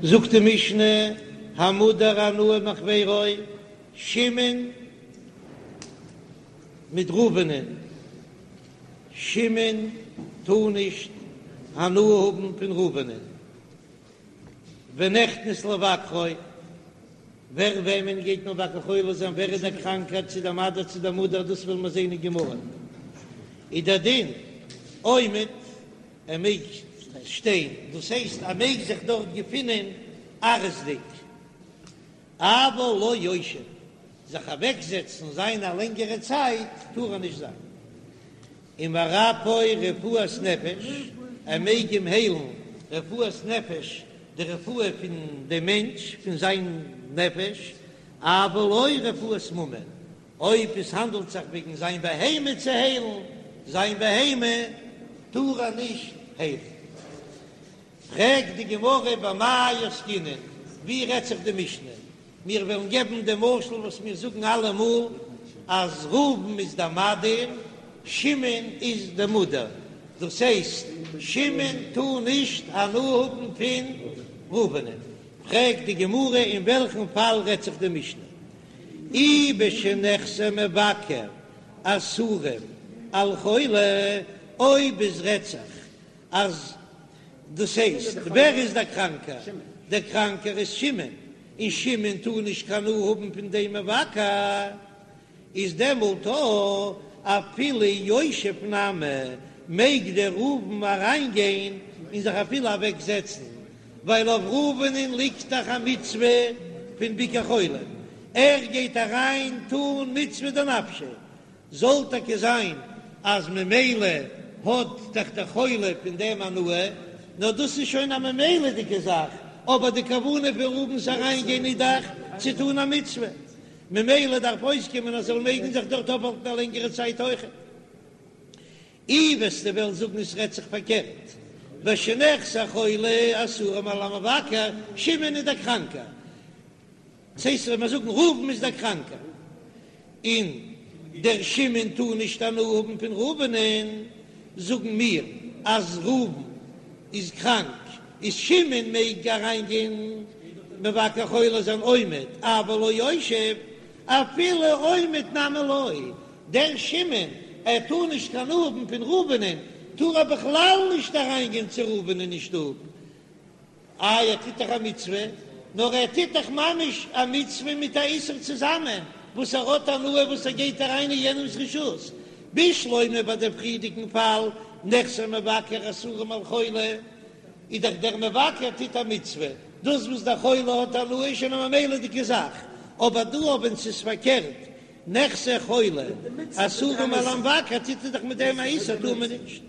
זאגט די משנה, המודר הנאה מחבירו, שמעון מיט ראובנ'ען, שמעון טאר נישט הנאה האבן פון ראובנ'ען, ונכנס לבקרו, ווער וועמען גייט מבקר חולה זיין, ווער איז דער קראנקער, צו דער מדיר צו דער מודר, דאס וועלן מיר זען אין גמרא, איז דער דין עומד, ער מעג שטיין, דאס הייסט ער מעג זיך דארט געפינען עראי'סדיג, אבל לא יושב, זיך אוועקזעצן זיין א לענגערע צייט טאר ער נישט זיין. ומרפאו רפואת נפש, ער מעג אים היילן רפואת נפש, די רפואה פון דעם מענטש, פון זיין נפש, אבל לא רפואת ממון, אויב עס האנדלט זיך וועגן זיין בהמה צו היילן זיין בהמה, טאר ער נישט היילן. פרעגט די גמרא במאי עסקינן, ווי רעדט זיך די משנה? מיר וועלן געבן דעם משל וואס מיר זאגן אלעמאל, אז ראובן איז דער מדיר, שמעון איז דער מודר, דאס הייסט, שמעון טאר נישט הנאה האבן פון ראובנ'ען. פרעגט די גמרא אין וועלכן פאל רעדט זיך די משנה? אי בשנכסי מבקר אסורים על חולה, אויב עס רעדט זיך אז דאס הייסט, ווער איז דער קראנקער? דער קראנקער איז שמעון, און שמעון טאר נישט קיין הנאה האבן פון דעם מבקר, איז דעמאלט אפילו יושב נמי, מעג דער ראובן אריין גיין און זיך אפילו אוועק זעצן, ווייל אויף ראובנ'ן ליגט דאך א מצוה פון ביקור חולים, ער גייט אריין טון מצוה דנפשיה, זאל טאקע זיין אז ממילא האט דאך דער חולה פון דעם הנאה, נאר דאס איז שוין א ממילא'דיגע זאך, אבער די כוונה פון ראובן'ס אריינגיין איז דאך צו טון א מצוה, ממילא דארף אויסקומען אז זאל מעגן זיך דארט אויפהאלטן א לענגערע צייט אויכעט. אי וועסטו וועלן זאגן עס רעדט זיך פארקערט, בשנכסי חולה אסורים על המבקר, שמעון איז דער קראנקער, ס'הייסט ווען מיר זאגן ראובן איז דער קראנקער און דער שמעון טאר נישט הנאה האבן פון ראובנ'ען, זאגן מיר אז ראובן איז קראנק איז שמעון מעג אריינגיין מבקר חולה זיין עומד אבל לא יושב, אפילו עומד נמי לא, דער שמעון ער טאר נישט קיין הנאה האבן פון ראובנ'ען טאר ער בכלל נישט אריינגיין צו ראובנ'ען אין שטוב. איי ער טוט דאך א מצוה, נאר ער טוט דאך ממש א מצוה מיט א איסור צוזאמען, וואס ער האט הנאה וואס ער גייט אריין אין יענעמס רשות, בשלמא ביי דעם פריערדיגן פאל, נכסי מבקר אסורים על חולה, איז דאך דער מבקר טוט א מצוה, דאס וואס דער חולה האט הנאה איז שוין א ממילא'דיגע זאך, אבער דא ווען ס'איז פארקערט, נכסי חולה אסורים על המבקר טוט ער דאך מיט דעם א איסור טאר מען נישט.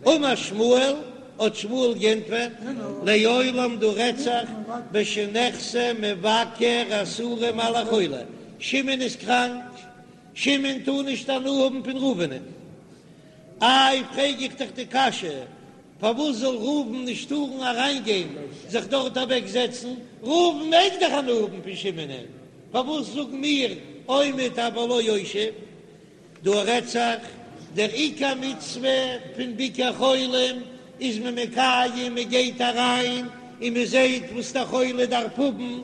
אמר שמואל, האט שמואל גענטפערט, לעולם דא רעדט זיך בשנכסי מבקר אסורים על החולה, שמעון איז קראנק, שמעון טאר נישט הנאה האבן פון ראובנ'ען, איי פרעג איך דיך די קשיא, פארוואס זאל ראובן נישט טארן אריינגיין זיך דארט אוועק זעצן, ראובן מעג דאך הנאה האבן פון שמעונ'ען, פארוואס זאגן מיר עומד אבל לא יושב? דא רעדט זיך, דער עיקר מצוה פון ביקור חולים איז מען מקיים, מען גייט אריין און מען זעט וואס דער חולה דארף האבן,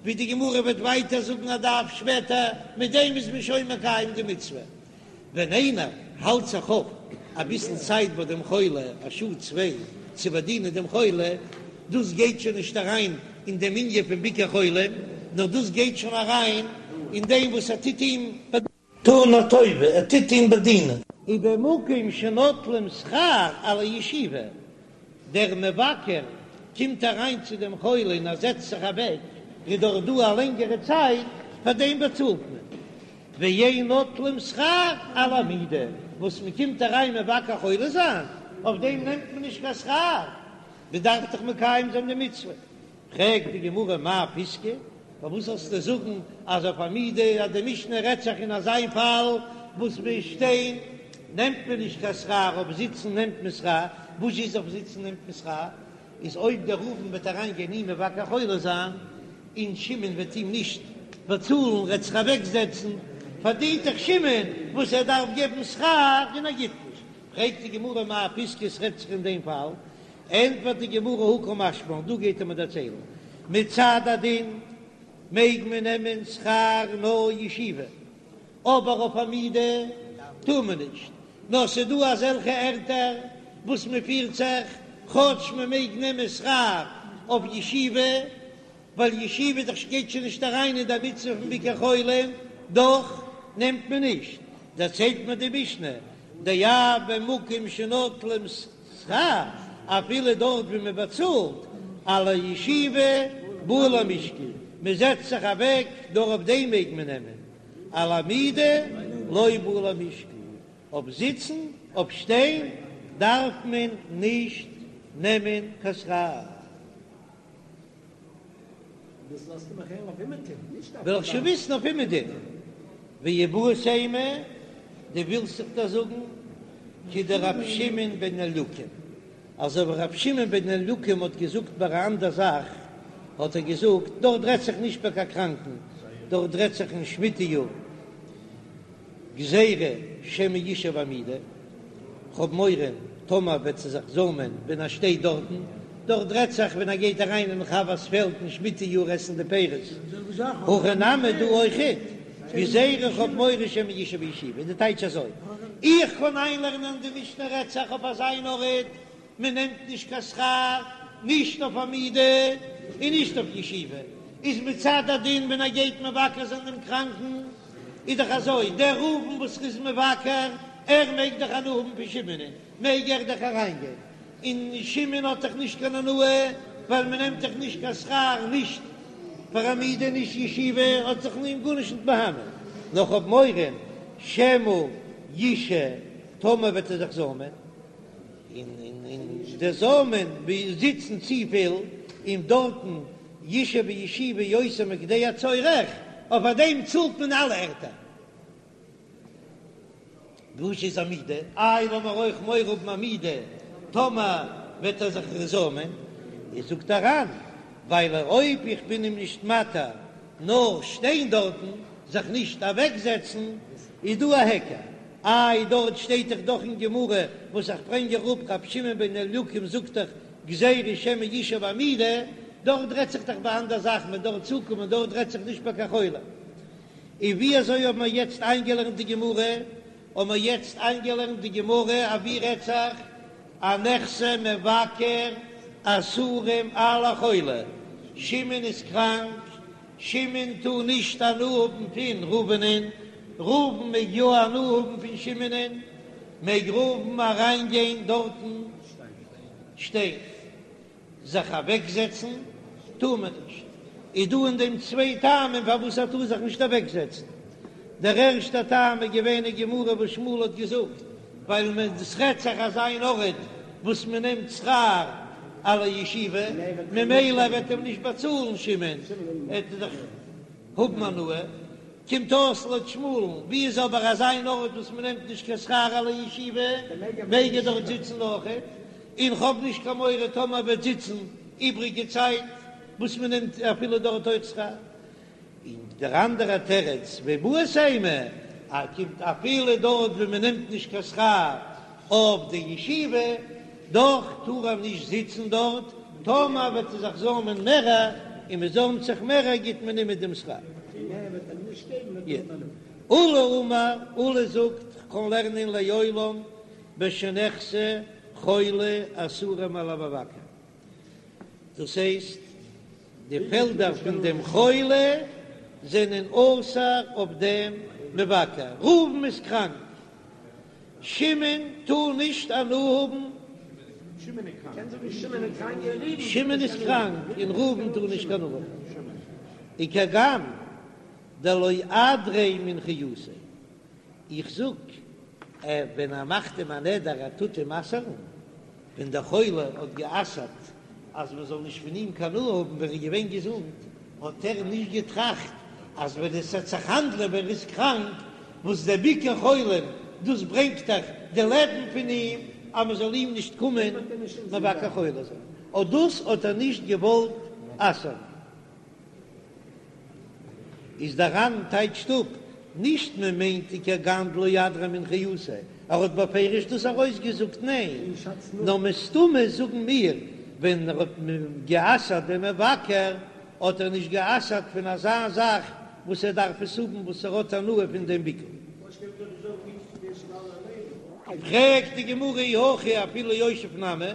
ווי די גמרא וועט ווייטער זאגן א דף שפעטער, מיט דעם איז מען שוין מקיים די מצוה. ווען איינער האלט זיך אויף אביסל צייט ביי דעם חולה, א שעה צוויי, צו באדינען דעם חולה, דאס גייט שוין נישט אריין אין דעם ענין פון ביקור חולים, נאר דאס גייט שוין אריין אין דעם וואס ער טוט אים. טון א טובה, ער טוט אים באדינען. ובמקום שנוטלים שכר על הישיבה, דער מבקר קומט אריין צו דעם חולה און ער זעצט זיך אוועק, איז דאך דא א לענגערע צייט, פאר דעם באצאלט מען. ואין נוטלים שכר על העמידה, וואס מען קומט אריין מבקר חולה זיין, אויף דעם נעמט מען נישט קיין שכר, מען דארף דאך מקיים זיין די מצוה. פרעגט די גמרא מאי פסקא, פארוואס זאלסטו זאגן אז אויף עמידה אז די משנה רעדט זיך אין אזיין פאל וואס ביי שטיין נעמט מען נישט קיין שכר אויף זיצן נעמט מען שכר, וואס איז אויף זיצן נעמט מען שכר? איז אויב דער ראובן וועט אריין גיין אים מבקר חולה זיין און שמעון וועט אים נישט באצאלן וועט זיך אוועק זעצן פארדינט דאך שמעון וואס ער דארף געבן שכר און ער גיבט נישט, פרעגט די גמרא מאי פסקא עס רעדט זיך אין דעם פאל ענטפערט די גמרא הא קא משמע לן, דא גייט ער מיר דערציילן. מצד הדין מעג מען נעמען שכר נאר ישיבה, אבער אויף עמידה טאר מען נישט, נאר ס'דא אזעלכע ערטער וואס מען פירט זיך כאטש מען מעג נעמען שכר אויף ישיבה, ווייל ישיבה דאך גייט שוין נישט אריין אין די מצוה פון ביקור חולים, דאך נעמט מען נישט, דערציילט מיר די משנה, דאף במקום שנוטלים שכר, אפילו דארט ווי מען באצאלט על הישיבה בעי למשקל, מען זעצט זיך אוועק, נאר אויף דעם מעג מען נעמען, על עמידה לא בעי למשקל, אויף זיצן, אויף שטיין דארף מען נישט נעמען קיין שכר. וועל איך שוין וויסן אויף אומעטום. ואיבעית אימא, דו ווילסט זיך דאס זאגן כדרבי שמעון בן אליקים, אזוי ווי רבי שמעון בן אליקים האט געזאגט ביי א אנדער זאך, האט ער געזאגט, דארט רעדט זיך נישט ביי קיין קראנקן, דארט רעדט זיך אין שמיטה יאר. גזירה שמא ישהא בעמידה, כ'האב מורא טאמער וועט ער זיך זאמען ווען ער שטייט דארטן, דארט רעדט זיך ווען ער גייט אריין אין חבר'ס פעלד אין שמיטה יאר עסן די פירות, הכא נמי דא אויכעט, גזירה כ'האב מורא שמא ישהא בישיבה, איז די טייטש אזוי, איך קען איינלערנען די משנה רעדט זיך אויף אזא אן ארט, מען נעמט נישט קיין שכר נישט אויף עמידה און נישט אויף ישיבה, איז מצד הדין ווען ער גייט מבקר זיין דעם קראנקן איז דאך אזוי, דער ראובן וואס איז מבקר ער מעג דאך הנאה האבן פון שמעונ'ען, מעג ער דאך אריינגיין, און שמעון האט דאך נישט קיין הנאה ווייל מען נעמט דאך נישט קיין שכר נישט פאר עמידה נישט ישיבה, האט זיך אים גארנישט נישט מהנה, נאר כ'האב מורא שמא ישהא טאמער וועט ער זיך זאמען. און די זאמען ווי זיצן צופיל און דארטן ישהא בישיבה יותר מכדי הצורך, אויף פאר דעם צאלט מען אלע ערטער. וואס איז עמידה? איי לאמיר אויך מורא האבן עמידה טאמער וועט ער זיך זאמען, איז זאגט דער ר"ן ווייל אויב איך בין אים נישט מתיר נאר שטיין דארטן זיך נישט אוועקזעצן איז דא א היכר איי דארט שטייט דאך דאך אין גמרא וואס איך ברענג אראפ רבי שמעון בן אליקים זאגט דאך גזירה שמא ישהא בעמידה, דארט רעדט זיך דאך ביי אנדער זאך מען דארט צוקומען דארט רעדט זיך נישט ביי קיין חולה. און ווי אזוי האבן מיר יעצט איינגעלערנט די גמרא? האבן מיר יעצט איינגעלערנט די גמרא אוואו רעדט זיך אז נכסי מבקר אסורים על החולה, שמעון איז קראנק שמעון טאר נישט הנאה האבן פון ראובנ'ען, ראובן מעג יא הנאה האבן פון שמעונ'ען, מעג ראובן אריינגיין דארטן שטיין, זיך אוועקזעצן טאר מען נישט, איז דא אין דעם צוויי טעמים פארוואס ער טאר זיך נישט אוועקזעצן, דער ערשטער טעם איז געווען אין גמרא וואס שמואל האט געזאגט, ווייל מען עס רעדט זיך אזא אן ארט וואס מען נעמט שכר על הישיבה, ממילא וועט אים נישט באצאלן שמעון, ער וועט דאך האבן הנאה, קומט אויס לויט שמואל'ן, ווי איז אבער אזא אן ארט וואס מען נעמט נישט קיין שכר על הישיבה, מעג ער דארט זיצן אויכעט, און כ'האב נישט קיין מורא טאמער ער וועט זיצן איבריגע צייט וואס מען נעמט אפילו דארט אויך שכר. און דער אנדערע תירוץ ואיבעית אימא אז קומט אפילו דארט ווי מען נעמט נישט קיין שכר אויף די ישיבה, דאך טאר ער נישט זיצן דארט, טאמער וועט ער זיך זאמען מערער, און מען זאמט זיך מערער גיט מען אים מיט דעם שכר. עולא אמר, עולא זאגט, כ'קען לערנען לעולם בשנכסי חולה אסורים על המבקר, דאס הייסט, די פעלדער פון דעם חולה זענען אסור אויף דעם מבקר. ראובן איז קראנק, שמעון טאר נישט הנאה האבן. שמעון איז קראנק און ראובן טאר נישט הנאה האבן. וכגון דלא אדריה מן חיותיה, איך זאג, ווען ער מאכט אים א נדר ער טוט אים אסר'ן, ווען דער חולה האט גע'אסר'ט אז מען זאל נישט פון אים קיין הנאה האבן ווען ער איז געווען געזונט, האט ער נישט געטראכט אז ווען עס וועט זיך האנדלען ווען ער איז קראנק, וואס דער ביקור חולים דאס ברענגט דאך די לעבן פון אים, אז מען זאל אים נישט קומען מבקר חולה זיין, אט דאס האט ער נישט געוואלט אסר'ן. איז דער ר"ן טייטשט אפ, נישט מען מיינט וכגון דלא אדריה מן חיותיה, ער האט בפירוש דאס ארויסגעזאגט, ניין, נאר מסתמא זאגן מיר ווען ער האט גע'אסר'ט דעם מבקר. האט ער נישט גע'אסר'ט פון אזא זאך וואס ער דארף עס האבן וואס ער האט הנאה פון דעם ביקור. פרעגט די גמרא אי הכי אפילו יושב נמי,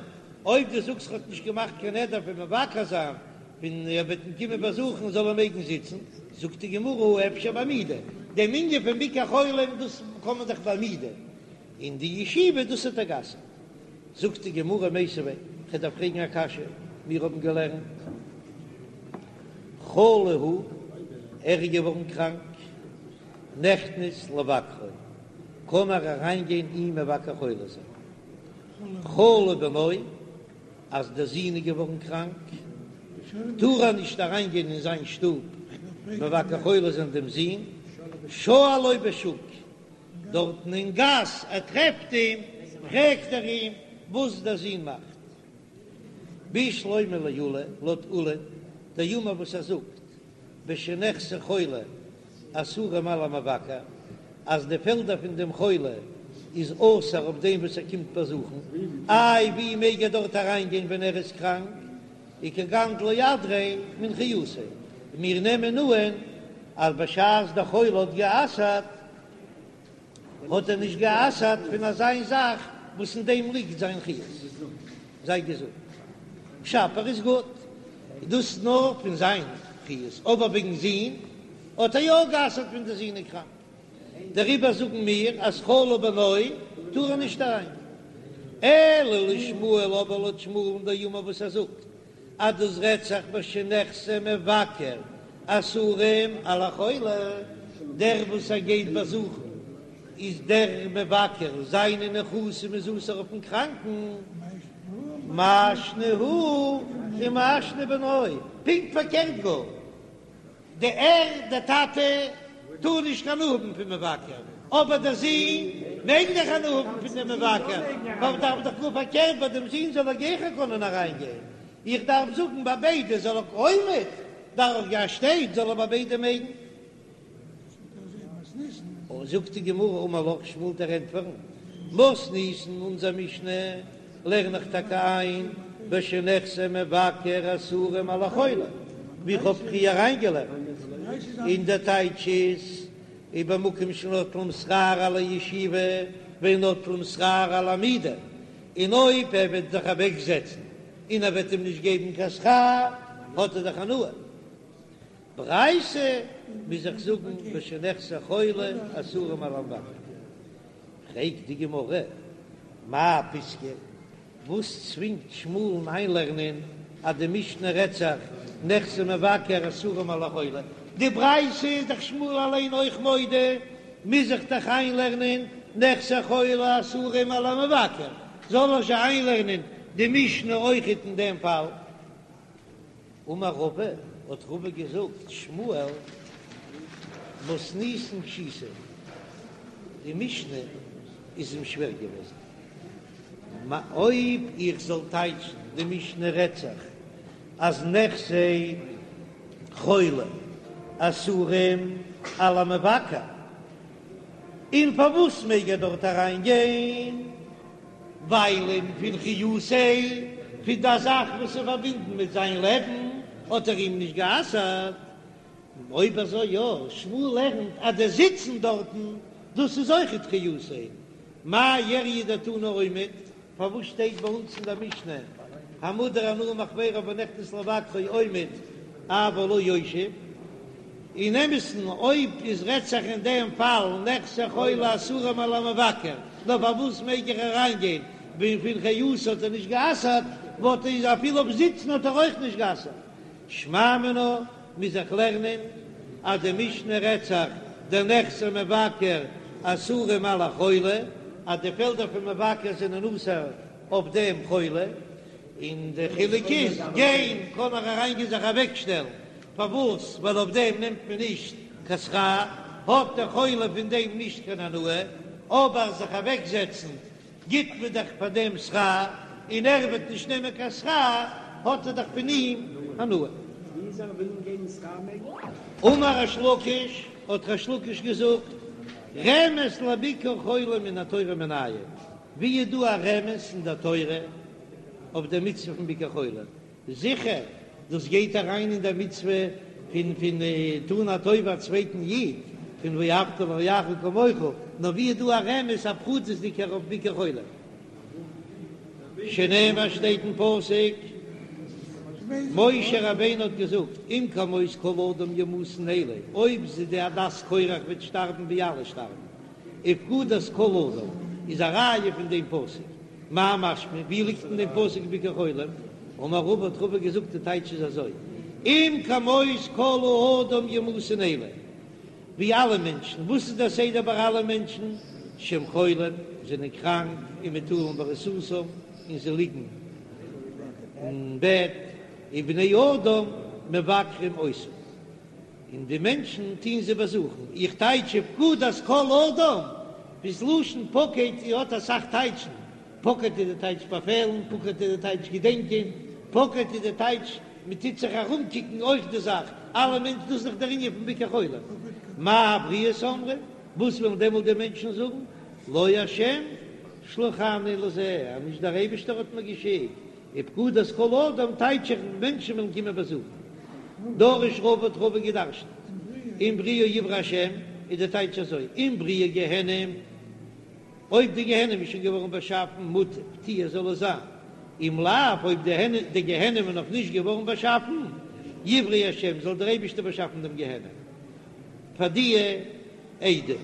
אויב דו זאגסט ער האט נישט געמאכט קיין נדר פון מבקר זיין, ווען ער וועט אים קומען באזוכן זאל ער מעגן זיצן, זאגט די גמרא הא אפשר בעמידה, דעם ענין פון ביקור חולים דאס קען מען דאך בעמידה, און די ישיבה דאס האט ער גע'אסר'ט. זאגט די גמרא מיתיבי, כ'דארף פרעגן א קשיא, מיר האבן געלערנט חלה הוא, ער איז געווארן קראנק, נכנס לבקרו, קען ער אריינגיין אים מבקר חולה זיין, חלה בנו, אז דער זון איז געווארן קראנק, טאר ער נישט אריינגיין אין זיין שטוב מבקר חולה זיין דעם זון, שואלו בשוק, דארטן אין גאס, ער טרעפט אים, פרעגט ער אים וואס דער זון מאכט. בשלמא לעולא, לויט עולא, דאמר וואס ער זאגט, בשנכסי חולה אסורים על המבקר, אז די פעלדער פון דעם חולה איז אסור אויף דעם וואס ער קומט באזוכן, איי ווי מעג ער דארט אריינגיין ווען ער איז קראנק? וכגון דלא אדריה מן חיותיה, מיר נעמען אן אז בשעת דער חולה האט גע'אסר'ט האט ער נישט גע'אסר'ט פון אזיין זאך וואס אין דעם ליגט זיין חיות, זיי געזונט, שפיר איז גוט, דאס נאר פון זיין חיות, אבער וועגן זון האט ער יא גע'אסר'ט ווען די זון איז קראנק, דעריבער זאגן מיר אז חלה בנו טאר ער נישט אריין, אלא לשמואל אבער לויט שמואל'ן דאמר וואס ער זאגט אז דאס רעדט זיך בשנכסי מבקר אסורים על החולה, דער וואס ער גייט באזוכן איז דער מבקר, זיינע נכסים איז אסור אויפן קראנקן, מאי שנא הוא ומאי שנא בנו, פונקט פארקערט גאר. די ער, דער טאטע, טאר נישט הנאה האבן פון מבקר, אבער דער זון מעג דאך הנאה האבן פון דעם מבקר, ווייל דארף דאך גאר פארקערט ביי דעם זון זאל ער גיכער קענען אריינגיין, איך דארף זאגן ביי ביידע זאל ער עומד, דארף איך גיין שטייט זאל ער ביי ביידע מעגן. זאגט די גמרא אמר לך שמואל וועט דיר ענטפערן, מתניתין אונזער משנה לערן איך טאקע איין בשנכסי מבקר אסורים על החולה, ווי איך האב פריער אריינגעלערנט, און דער טייטש איז ובמקום שנוטלים שכר על הישיבה ואין נוטלים שכר על העמידה, און אויב ער וועט זיך אוועקזעצן און ער וועט אים נישט געבן קיין שכר האט ער דאך הנאה. ברייתא מוז איך זאגן בשנכסי חולה אסורים על המבקר. פרעגט די גמרא, מאי פסקא, וואס צווינגט שמואל'ן איינלערנען אז די משנה רעדט זיך נכסי מבקר אסורים על החולה? די ברייתא איז דאך שמואל אליין אויך מודה, מוז איך דאך איינלערנען נכסי חולה אסורים על המבקר, זאל איך זשע איינלערנען די משנה אויכעט אין דעם פאל? אמר רבא, האט רבא געזאגט, שמואל מתניתין קשיתיה, די משנה איז אים שווער געוועזן, אויב איך זאל טייטשן די משנה רעדט זיך אז נכסי חולה אסורים על המבקר, און פארוואס מעג ער דארט אריין גיין? ווייל אים פון חיותיה פון די זאך וואס איז פארבינדן מיט זיין לעבן האט ער אים נישט גע'אסר'ט, אויב אזוי יא, שמואל לערנט אז די זיצן דארטן דאס איז אויכעט חיותיה, מאי איריא דתנא עומד, פארוואס שטייט ביי אונז אין דער משנה המודר הנאה מחבירו ונכנס לבקרו עומד אבל לא יושב? אין אמת'ן אויב איז רעדט זיך אין דעם פאל נכסי חולה אסורים על המבקר, נאר פארוואס מעג ער אריין גיין ווען פון חיות האט ער נישט גע'אסר'ט, וואלט איז אפילו אויף זיצן האט ער אויך נישט גע'אסר'ט. שמע מינה מוז איך לערנען אז די משנה רעדט זיך דנכסי מבקר אסורים על החולה, אז די פעלדער פון מבקר זענען אסור אויף דעם חולה, און די חילוק איז גיין קען ער אריינגיין זיך אוועקשטעלן פארוואס? ווייל אויף דעם נעמט מען נישט קיין שכר, האט דער חולה פון דעם נישט קיין הנאה, אבער זיך אוועקזעצן גיט מען דאך פאר דעם שכר, און ער וועט נישט נעמען קיין שכר, האט ער דאך פון אים הנאה. אמר ריש לקיש, האט ריש לקיש געזאגט, רמז לביקור חולים מן התורה מנין, ווי איז דא א רמז אין דער תורה אויף דער מצוה פון ביקור חולים? זיכער. דאס גייט אריין אין דער מצוה פון פון טון א טובה א צווייטן איד, פון ואהבת לרעך כמוך, נאר ווי איז דא א רמז א פרטית'דיגער אויף ביקור חולים? שנאמר שטייט אין פסוק, משה רבינו האט געזאגט, אם כמות כל אדם ימותון אלה, אויב זי די עדת קורח וועט שטארבן ווי אלע שטארבן, ופקודת כל אדם איז א ראיה פון דעם פסוק, מאי משמע, ווי ליגט אין דעם פסוק ביקור חולים? אמר רבא האט רבא געזאגט די טייטש איז אזוי, אם כמות כל האדם ימותון אלה, ווי אלע מענטשן, וואס איז דער סדר ביי אלע מענטשן? שהם חולים, זענען קראנק, ומוטלים בעריסתם, און זיי ליגן אין בעט, ובני אדם מבקרים אותם, און די מענטשן טוהן זיי באזוכן, איך טייטש ופקודת כל אדם, ווי ס'לשון פקד האט אסאך טייטשן, פקד איז די טייטש באפעלן, פקד איז די טייטש געדענקען, פקד איז די טייטש מען טוט זיך ארומקוקן אויך די זאך, אלע מענטשן, דאס איז דאך דער ענין פון ביקור חולים, מה הבריות אומרים, וואס וועלן דעמאלט די מענטשן זאגן, לא השם שלחני לזה, אז נישט דער אייבערשטער האט מיר געשיקט, ופקודת כל אדם טייטש איך מענטשן וועלן קומען באזוכן. דרש רבא האט רבא געדרשנט אם בריאה יברא השם איז די טייטש אזוי אם בריאה גיהנם אויב די גיהנם איז שוין געווארן באשאפן מוטב תהיה זאל עס זיין אם לאו אויב די גיהנם איז נאך נישט געווארן באשאפן יברא השם זאל דער אייבישטער באשאפן דעם גיהנם פאר די עדה.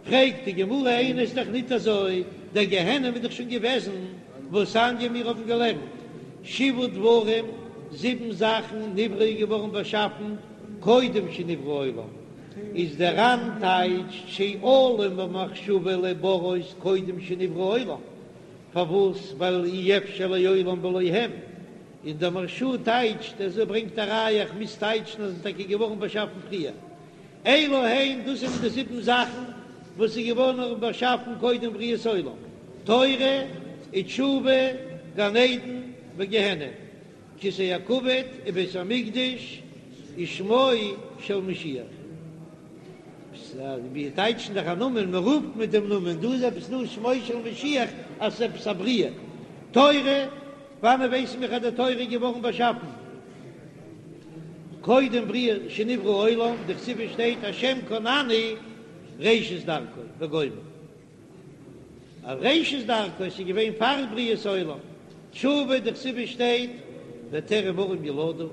פרעגט די גמרא איני ס'איז דאך ניט אזוי, דער גיהנום איז דאך שוין געוועזן, והתניא מיר האבן געלערנט שבעה דברים, זיבן זאכן נבראו געווארן באשאפן קודם שנברא העולם, איז דער ר"ן טייטשט שעלו במחשבה להבראות קודם שנברא העולם, פארוואס ווייל אי אפשר לעולם בלא הם, און דער מהרש"א טייטשט אז ער ברענגט א ראיה איך מוז טייטשן אז עס איז טאקע געווארן באשאפן פריער. אלו הן, דאס זענען די זיבן זאכן וואס איז געווארן באשאפן קודם בריאת עולם, תורה ותשובה, גן עדן וגיהנום, כסא הכבוד ובית המקדש ושמו של משיח. מיר טייטשן דאך א נאמען, מען רופט מיט דעם נאמען, דא איז עפעס נאר שמו של משיח אז ס'איז עפעס א בריאה. תורה, וואנען ווייסן מיר אז די תורה איז געווארן באשאפן? קודם בריאה שנברא העולם, דכתיב שטייט השם קנני ראשית דרכו וגומר, אז ראשית דרכו עס איז געווען פאר בריאת העולם, תשובה דכתיב שטייט בטרם הרים יולדו,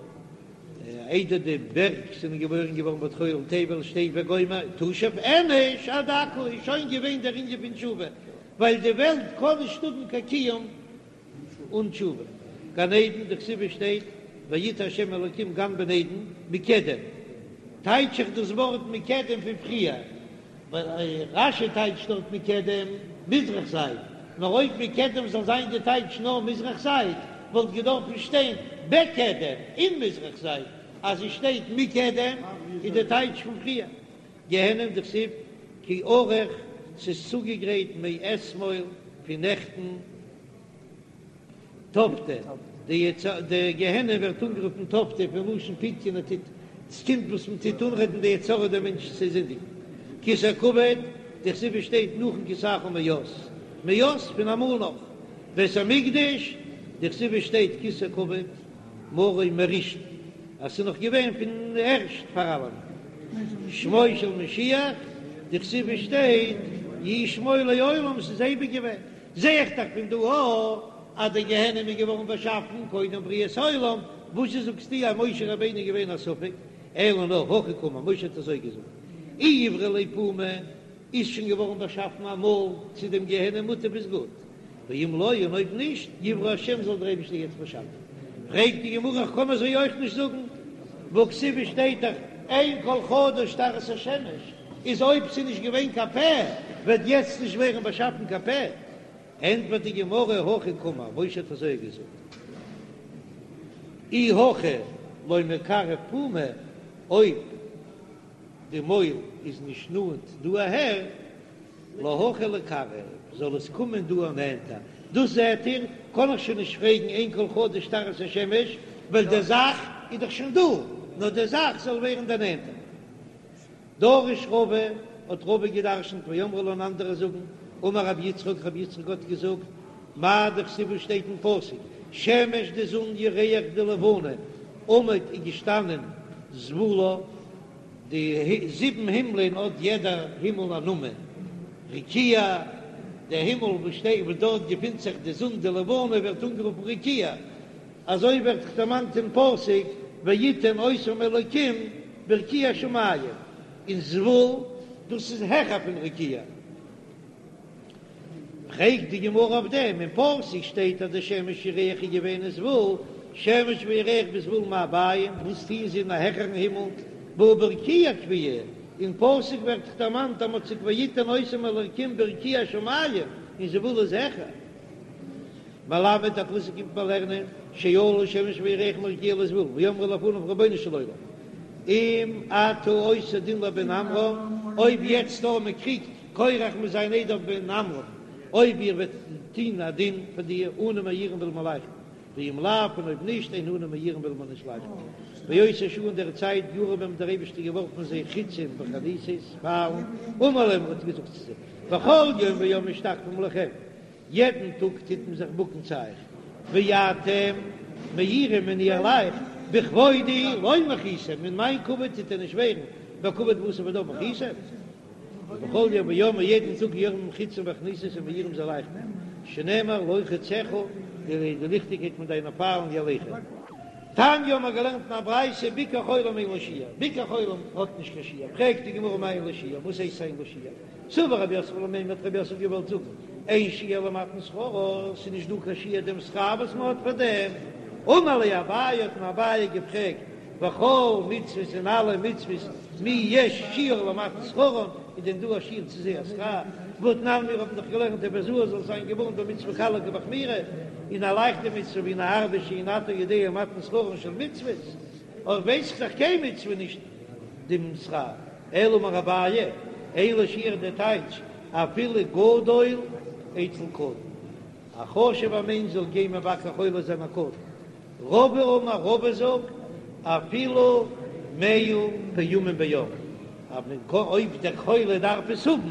איידער די בערג זענען געבוירן געווארן בתחול תבל שטייט וגומר, תשב אנוש עד דכא איז שוין געווען דער ענין פון תשובה, ווייל די וועלט קען נישט האבן קיין קיום אן תשובה. גן עדן, דכתיב שטייט ויטע השם אלקים גן בעדן מקדם, טייטש איך דאס ווארט מקדם פון פריער, ווייל רש"י טייטשט דארט מקדם מזרח זייט, נאר אויב מקדם זאל זיין די טייטש נאר מזרח זייט, וואלט געדארפן שטיין בקדם אין מזרח זייט, אז עס שטייט מקדם איז די טייטש פון פריער. גיהנום דכתיב כי ערוך, ס'איז צוגעגרייט מאתמול פון נעכטן. תפתה, די גיהנום ווערט אנגערופן תפתה פון לשון פיתוי מען טוט, ס'קומט וואס מען טוט אנרעדן די יצר הרע דעם מענטש צו זינדיגן. כסא הכבוד, דכתיב שטייט נכון כסאך מאז, מאז פון אמאל נאך. בית המקדש, דכתיב שטייט כסא כבוד מרום מראשון, אז ס'איז נאך געווען פון ערשט פאר אלעמען. שמו של משיח, דכתיב שטייט יהי שמו לעולם, ס'איז אייביג געווען. זע איך דאך פון דא א אז די גיהנום איז געווארן באשאפן קודם בריאת העולם, וואזשע זאגסטו אז משה רבינו איז געווען א ספק? אלא נאר הכי קאמר, משה האט אזוי געזאגט, אי איברי ליה פומא, איז שוין געווארן באשאפן א מויל צו דעם גיהנום מוטב איז גוט, ואם לא און אויב נישט, יברא השם זאל דער אייבערשטער יעצט באשאפן. פרעגט די גמרא איך קען אזוי אויך נישט זאגן, והכתיב שטייט דאך אין כל חדש תחת השמש, איז אויב ס'איז נישט געווען קיין פה וועט יעצט נישט ווערן באשאפן קיין פה? ענטפערט די גמרא הכי קאמר, משה האט אזוי געזאגט, אי הכי לא מיקרב פומא, אויב די מויל איז נישט נאנט דא אהער, להכא ליקרב, זאל עס קומען דא נענטער, דאס זעט איר, קען איך שוין נישט פרעגן אין כל חדש תחת השמש, ווייל די זאך איז דאך שוין דא, נאר די זאך זאל ווערן דערנענטערט. דרש רבא, האט רבא געדרשנט, ואמרי לה און אנדערע זאגן, אמר רבי יצחק, רבי יצחק האט געזאגט, מאי דכתיב וואס שטייט אין פסוק, שמש די זון ירח די לבנה. עמד איז געשטאנען זבולה, די זיבן הימלען האט יעדער הימל א נאמען, רקיע, דער הימל וואס שטייט וואס דארט געפינט זיך די זון די לבנה ווערט אנגערופן רקיע, אזוי ווערט דערמאנט אין פסוק ויתן אותם אלוקים ברקיע שמים, און זבול דאס איז העכער פון רקיע. פרעגט די גמרא אויף דעם, אין פסוק שטייט אז די שמש ירח איז געווען אין זבול, שמש וירח בזבול מאי בעיין, וואס טוען זיי אין א העכערן הימל, והא ברקיע קביעי, אין פסוק ווערט דאך דערמאנט אז מ'האט זיך ויתן אותם אלקים ברקיע שמים, און זבול איז העכער. מלמד דער פסוק קומט מיר לערנען, שעלו שמש וירח מרקיע לזבול, ואמרו לפניו רבונו של עולם, אם אתה עושה דין לבן עמרם, אויב יעצט דא מען קריגט קורח מיט זיין עדה אויף בן עמרם, אויב איר וועט טוהן א דין פאר דיר, אנו מאירים וועלן מיר לייכטן, ואם לאו, און אויב נישט, אין אנו מאירים וועלן מיר נישט לייכטן. באותה שעה אין דער צייט ירה בהם דער אייבערשטער געווארפן זיי חיצים וחניתות, פיילן, אמר להם האט געזאגט צו זיי, בכל יום ויום משתחווים לכם, יעדן טאג טוט מען זיך בוקן צו אייך, ואתם מאירים און איר לייכט, בכבודי לא מחיתם, אין מיין כבוד טוט איר נישט ווערן, בכבוד בשר ודם מחיתם, ובכל יום ויום און יעדן טאג יורה חיצים וחניתות ומאירים זיי לייכטן, שנאמר לאור חציך, די ליכטיגקייט פון דיינע פיילן ילכו. תניא האבן מיר געלערנט אין א ברייתא ביקור חולים אין לו שיעור, ביקור חולים האט נישט קיין שיעור, פרעגט די גמרא מאי אין לו שיעור, וואס הייסט אין לו שיעור? סבר רב יוסף למימר האט רב יוסף געוואלט זאגן, אין שיעור למתן שכרו, ס'איז נישט דא קיין שיעור דעם שכר וואס מען האט פאר דעם. אמר ליה אביי האט אים אביי געפרעגט, וכל מצוות און אלע מצוות מי יש שיעור למתן שכרן, איז דען דא א שיעור צו זייער שכר? והתנן מיר האבן דאך געלערנט הוי זהיר זאל זיין געווארנט במצוה קלה כבחמורה, אין א לייכטע מצוה ווי אין א הארבע שאין אתה יודע מתן שכרן של מצוות, אויך ווייס איך דאך קיין מצוה נישט דעם שכר. אלא אמר אביי, אין לו שיעור דער טייטש אפילו גדול אצל קטן, א חשוב'ער מענטש זאל גיין מבקר חולה זיין א קטן, רבא אמר רבא זאגט אפילו מאה פעמים ביום, אז מען קען אויב דער חולה דארף עס האבן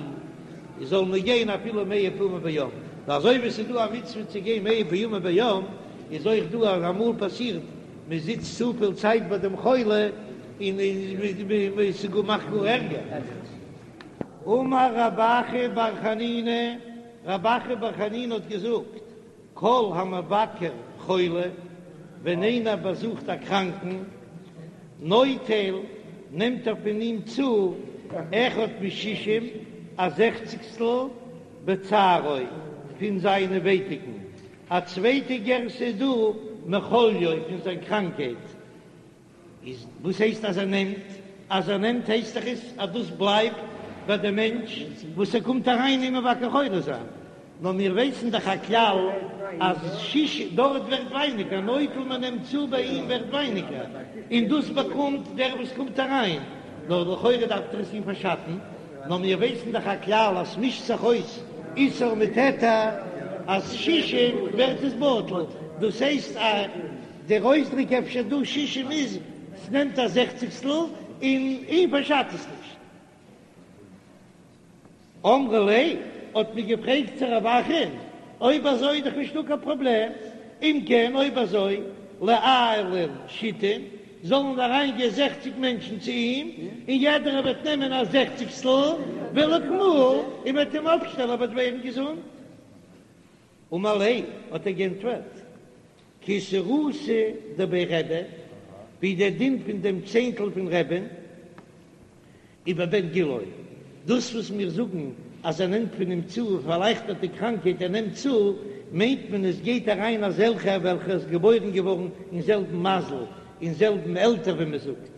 זאל מען גיין אפילו מאה פעמים ביום, ווייל אזוי ווי עס איז דא א מצוה צו גיין מאה פעמים ביום, איז אויך דא אז אמאל פאסירט מען זיצט צופיל צייט ביי דעם חולה און ס'מאכט גאר ערגער. אמר רב אחא בר חנינא, רב אחא בר חנינא האט געזאגט, כל המבקר חולה, ווען איינער באזוכט א קראנקן, נוטל, נעמט ער פון אים צו אחד משישים, א זעכציגסטל, בצערו, פון זיינע ווייטיקן, א צווייטע גירסא איז דא, מחוליו, פון זיין קראנקהייט. איז וואס הייסט אז ער נעמט? אז ער נעמט הייסט דאך עס אז דאס בלייבט ביי די מענטש וואס ער קומט אריין אים מבקר חולה זיין. נאר מיר ווייסן דאך א כלל אז שיש דארט ווערט ווייניגער, נוטל מען נעמט צו ביי אים ווערט ווייניגער, און דאס באקומט דער וואס קומט אריין, נאר לכאורה דארף ער עס אים פארשאטן. נאר מיר ווייסן דאך א כלל אז ס'מישט זיך אויס איסור מיט היתר אז שישים ווערט עס בטל, דאס הייסט אז דער אויסדרוק אפשר דא שישים איז ס'נעמט א זעכציגסטל און אים פארשאדט עס נישט. אמרי ליה האט מען געפרעגט צו רב אחא'ן אויב אזוי איז דאך נישטא קיין פראבלעם, אם כן אויב אזוי ליעלון שיתין זאלן אריין גיין זעכציג מענטשן צו אים, און יעדערער וועט נעמען א זעכציגסטל, ולוקמוהו, און מ'וועט אים אויפשטעלן ער וועט ווערן געזונט. אמר ליה, האט ער גענטפערט, כעישורתא דבי רבי, ווי דער דין פון דעם צענטל פון רבי'ן, ובבן גילו, דאס וואס מיר זאגן אז ער נעמט פון אים צו און פארלייכטערט די קראנקהייט, ער נעמט צו, מיינט מען עס גייט אריין אזעלכע וועלכע איז געבוירן געווארן אין זעלבן מזל, אין זעלבן עלטער ווי מען זאגט.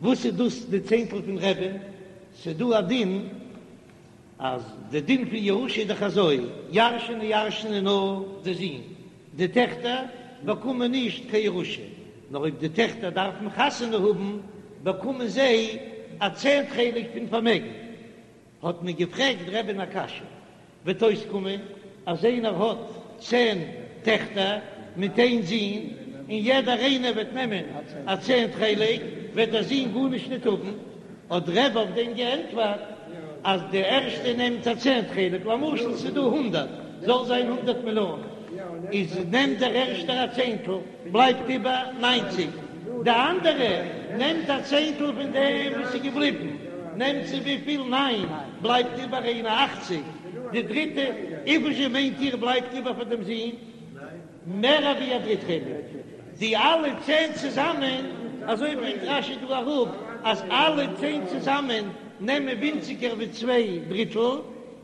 וואס איז דאס די צענטל פון רבי'ן? ס'איז דא א דין אז די דין פון ירושה איז דאך אזוי, ירש'נען ירש'נען נאר די זין, די טעכטער באקומען נישט קיין ירושה, נאר אויב די טעכטער דארפן חתונה האבן באקומען זיי א צענט חלק פון פארמעגן. האט מען געפרעגט רבי'ן א קשיא, וועט אויסקומען אז איינער האט צען טעכטער מיט איין זון, און יעדער איינער וועט נעמען א צענט חלק, וועט דער זון גארנישט ניט האבן, האט רבי אויף דעם געענטפערט אז די ערשטע נעמט א צענט חלק, למשל ס'איז דא הונדערט, זאל זיין הונדערט מיליאן, איז נעמט דער ערשטער א צענטל, בלייבט איבער ניינציג. די אנדערע נעמט א צענטל פון דעם וואס איז געבליבן, נעמט זי וויפיל? ניין, בלייבט איבער איין און אכציג, די דריטע, וויפיל זשע מיינט איר בלייבט איבער פאר דעם זון? מער ווי א דריט חלק, די אלע צען צוזאמען, אזוי ברענגט רש"י דא אראפ, אז אלע צען צוזאמען נעמען ווינציגער ווי צוויי דריטל,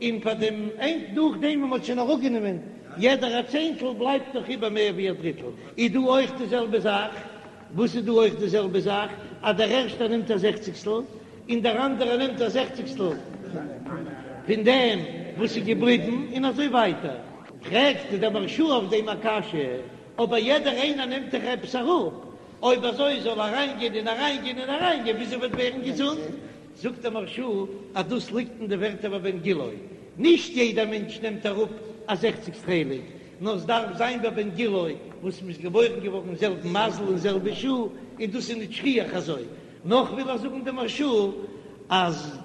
און פאר דעם איין נאכדעם וואס מען האט שוין אראפגענומען יעדער א צענטל בלייבט נאך איבער מער ווי א דריטל, איז דא אויך די זעלבע זאך? וואס איז דא אויך די זעלבע זאך אז דער ערשטער נעמט א זעכציגסטל און דער אנדערער נעמט א זעכציגסטל פון דעם וואס איז געבליבן און אזוי ווייטער. פרעגט דער מהרש"א אויף דעם א קשיא, אבער יעדער איינער נעמט דאך עפעס אראפ, אויב אזוי זאל אריינגיין און אריינגיין און אריינגיין ביז ער וועט ווערן געזונט, זאגט דער מהרש"א אז דאס ליגט אין די ווערטער בבן גילו, נישט יעדער מענטש נעמט אראפ א זעכציגסט חלק, נאר עס דארף זיין בבן גילו וואס מ'איז געבוירן געווארן אין זעלבן מזל און זעלבע שעה, און דאס איז נישט שכיח אזוי. נאך וויל ער זאגן דער מהרש"א אז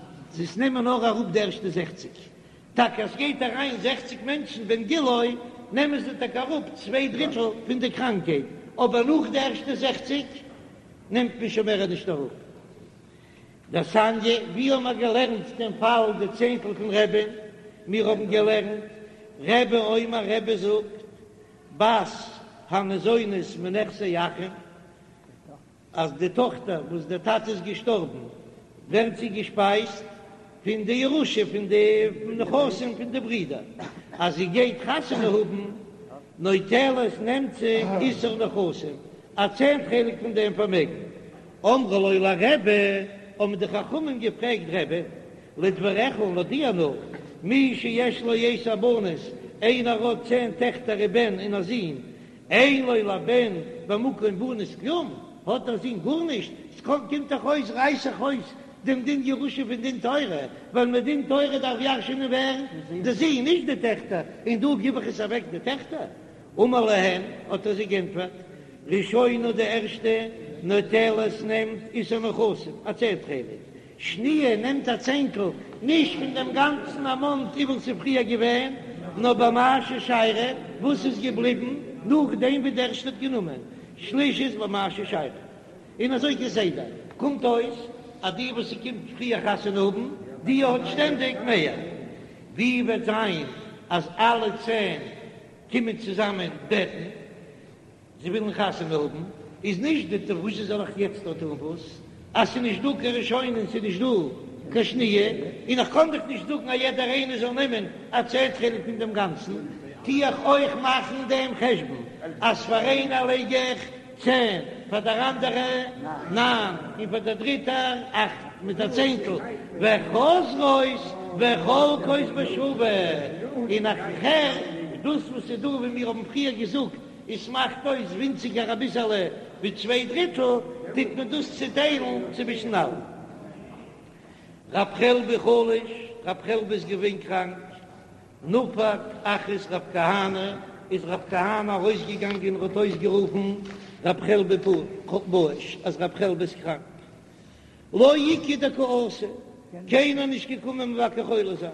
עס נעמען נאר אראפ די ערשטע זעכציג, טאקע אז ס'גייט אריין זעכציג מענטשן בן גילו נעמען זיי טאקע אראפ צוויי דריטל פון די קראנקייט, אבער נאך די ערשטע זעכציג נעמט מען שוין מער נישט אראפ. דתניא, ווי האבן מיר געלערנט דעם פאל די צענטל פון רבי'ן? מיר האבן געלערנט, רבי אומר רבי זאגט, בת הניזונת מנכסי אחים, אז די טאכטער וואס דער טאטע איז געשטארבן ווערט זי געשפייזט פון די ירושה פון די נכסים פון די ברידער, אז זי גייט חתונה האבן נוטלת נעמט זי עישור נכסים, א צענט חלק פון דעם פארמעגן. אמרו לו לרבי, האבן די חכמים געפרעגט רבי, לדבריך לויט דיר נאך, מי שיש לו עשר בנות, איינער האט צען טעכטער ובן און א זון, אין לו לבן במקום בנות כלום, האט דער זון גארנישט, ס'קומט דאך אויס רייס איך אויס דעם דין ירושה פון דין תורה, ווייל מדין תורה דארף ירש'ענען ווער? די זון, נישט די טעכטער, און דא גיב איך עס אוועק די טעכטער. אמר להן, האט ער זיי גענטפערט, ראשונה די ערשטע, נוטלת נעמט עישור נכסים, א צענט חלק, שניה נעמט א צענטל, נישט פון דעם גאנצן אמאונט וויפיל ס'איז פריער געווען, נאר במה ששיירה, וואס איז געבליבן נאכדעם ווי די ערשטע האט גענומען, שלישית במה ששיירה. און אזוי כסדר, קומט אויס אז די וואס ס'קומט פריער חתונה האבן, די האט שטענדיג מער. ווי וועט זיין אז אלע צען קומען צוזאמען בעטן זיי ווילן חתונה האבן, איז נישט די טבע וואס זאל איך יעצט דא טון וואס אז ס'איז נישט דא קיין ראשונה און ס'איז נישט דא קיין שניה, און איך קען דאך נישט זאגן אז יעדער איינער זאל נעמען א צענט חלק פון דעם גאנצן, טו איך אויך מאכן דעם חשבון אז פאר איינער לייג איך צען, פאר דער אנדערע ניין, און פאר דער דריטער אכט מיט א צענטל, וחוזרות וחולקות בשווה, און נאכהער דאס וואס איז דא ווי מיר האבן פריער געזאגט, עס מאכט אויס ווינציגער אביסעלע ווי צוויי דריטל, טוט מען דאס צעטיילן צווישן אלע. רב חלבו חלש, רב חלבו איז געווען קראנק, נפק אכריז רב כהנא, איז רב כהנא ארויסגעגאנגען און האט אויסגערופן רב חלבו באיש אז רב חלבו איז קראנק. לא איכא דקא אתי, קיינער נישט געקומען מבקר חולה זיין.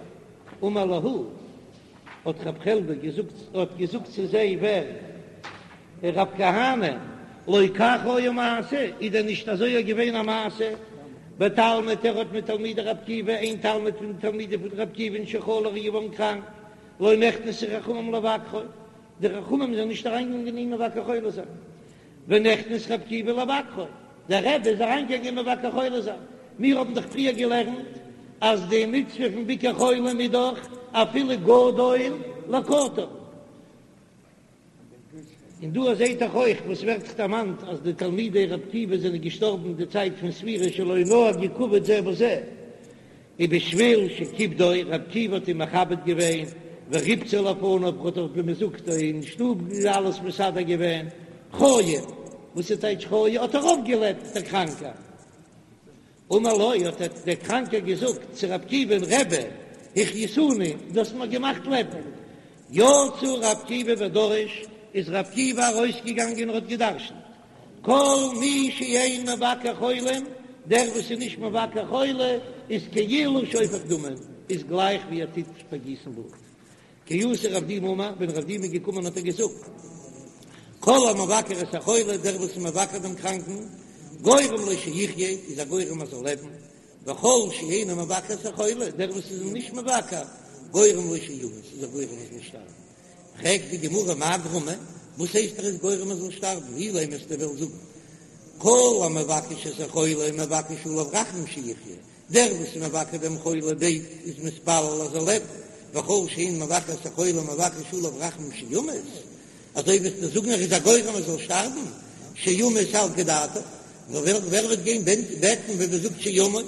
אמר להו, האט רב חלבו געזאגט האט געזאגט צו זיי ווער? רב כהנא, לא כך היה מעשה, איז דען נישט אזוי געווען א מעשה? בתלמיד אחד מתלמידי רבי עקיבא, איין תלמיד פון די תלמידים פון רבי עקיבא'ן שחלה איז געווארן קראנק, לא נכנסו חכמים לבקרו, די חכמים זענען נישט אריינגעגאנגען אים מבקר חולה זיין, ונכנס רבי עקיבא לבקרו, דער רבי איז אריינגעגאנגען מבקר חולה זיין, מיר האבן דאך פריער געלערנט אז די מצוה פון ביקור חולים איז דאך אפילו גדול לקטן. און דא זעהט דאך אויך וואס ווערט זיך דערמאנט אז די תלמידי רבי עקיבא זענען געשטארבן אין די צייט פון ספירה שלא נהגו כבוד זה בזה, ובשביל שכיבדו, רבי עקיבא האט אים מכבד געווען, וריבצו לפניו, האט ער ווי מען זאגט אין שטוב אלעס מסדר געווען, חיה, וואס איז טייטש חיה? האט ער אויפגעלעבט דער קראנקער. אמר לו, האט דער קראנקער געזאגט צו רבי עקיבא'ן, רבי, החייתני, דו האסט מיר געמאכט לעבן. יצא רבי עקיבא ודרש, איז רבי עקיבא ארויסגעגאנגען און האט געדרשנט, כל מי שאין מבקר חולים, דער וואס איז נישט מבקר חולה, איז כאילו שופך דמים, איז גלייך ווי ער טוט פארגיסן בלוט. כי אתא רב דימי אמר, ווען רב דימי איז געקומען האט ער געזאגט, כל המבקר את החולה, דער וואס איז מבקר דעם קראנקן. גורם לו שיחיה, איז ער גורם ער זאל לעבן, וכל שאינו מבקר את החולה, דער וואס איז אים נישט מבקר, גורם לו שימות, איז ער גורם ער זאל שטארבן. פרעגט די גמרא מאי גרמא, וואס הייסט ער איז גורם ער זאל שטארבן, אילימא וועסטו וועלן זאגן, כל המבקש את החולה מבקש עליו רחמים שיחיה, דער וואס איז מבקר דעם חולה בעט איז מתפלל ער זאל לעבן, וכל שאין מבקר את החולה מבקש עליו רחמים שימות, אזוי וועסטו זאגן ער איז א גורם ער זאל שטארבן, שימות סלקא דעתך, נו ווער וועט גיין בעטן ווען מען זאגט שימות?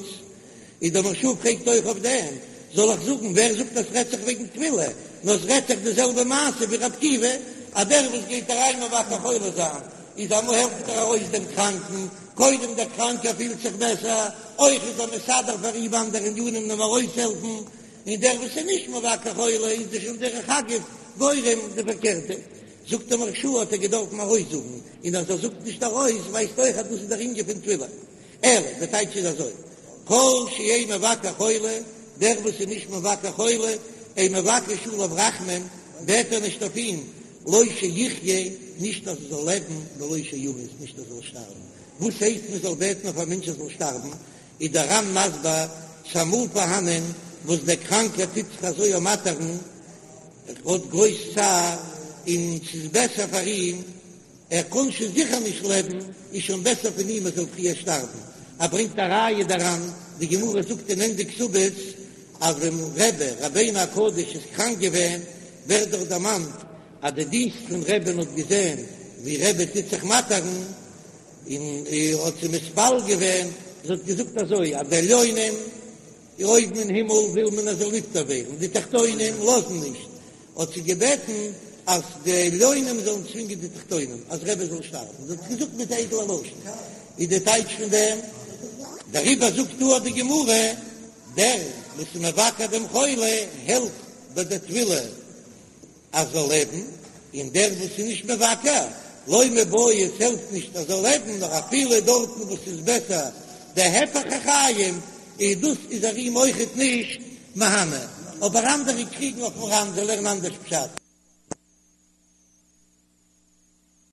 איז דער מהרש"א פרעגט אויך אויף דעם, זאל איך זאגן ווער זאגט אז ס'רעדט זיך וועגן תפילה, נאר ס'רעדט זיך די זעלבע מעשה ווי ר' עקיבא, אז דער וואס גייט אריין מבקר חולה זיין איז אמאל העלפט ער ארויס דעם קראנקן, קודם דער קראנקער פילט זיך בעסער, אויך איז ער מסדר פאר אים אנדערע ענינים אים ארויסהעלפן, און דער וואס איז נישט מבקר חולה איז דאך שוין דרך אגב גורם די פארקערטע. זאגט דער מהרש"א האט ער געדארפן ארויסזאגן, און אז ער זאגט נישט ארויס ווייזט אויך אז דאס איז דער ענין פון תפילה. אלא, די טייטש איז אזוי, כל שאין מבקר חולה, דער וואס איז נישט מבקר חולה, אין מבקש עליו רחמים, בעט ער נישט אויף אים, לא שיחיה, נישט אז ער זאל לעבן, ולא שימות, נישט ער זאל שטארבן. וואס הייסט מען זאל בעטן אויף א מענטש ער זאל שטארבן? איז דער ר"ן מסביר, ס'אמאל פארהאנען וואס דער קראנקער טוט זיך אזוי מאטערן, ער האט גרויס צער, און ס'איז בעסער פאר אים, ער קען שוין זיכער נישט לעבן, איז שוין בעסער פון אים ער זאל פריער שטארבן. ער ברענגט א ראיה דער ר"ן, די גמרא זאגט אין ענדע כתובות אז ווען רבי, רבינו הקדוש איז קראנק געווען, ווערט דאך דערמאנט אז די דינסט פון רבי'ן האט געזען ווי רבי טוט זיך מאטערן, און האט זי מתפלל געווען, זי האט געזאגט אזוי אז די עליונים אויבן אין הימל וויל מען ער זאל נפטר ווערן, די תחתונים לאזן נישט, האט זי געבעטן אז די עליונים זאלן צווינגען די תחתונים אז רבי זאל שטארבן, זי האט געזאגט מיט א איידעלע לשון, איז די טייטש פון דעם, דעריבער זאגט דא די גמרא, דער וואס איז מבקר דעם חולה העלפט ביי די תפילה אז זאל לעבן, און דער וואס איז נישט מבקר, לא מיבעיא, עס העלפט נישט אז זאל לעבן, נאר אפילו דארטן וואס איז בעסער די הפך החיים, איז דאס איז ער אים אויכעט נישט מהנה, אבער אנדערע קריגן אויפן ר"ן, זיי לערנען אנדערש פשט.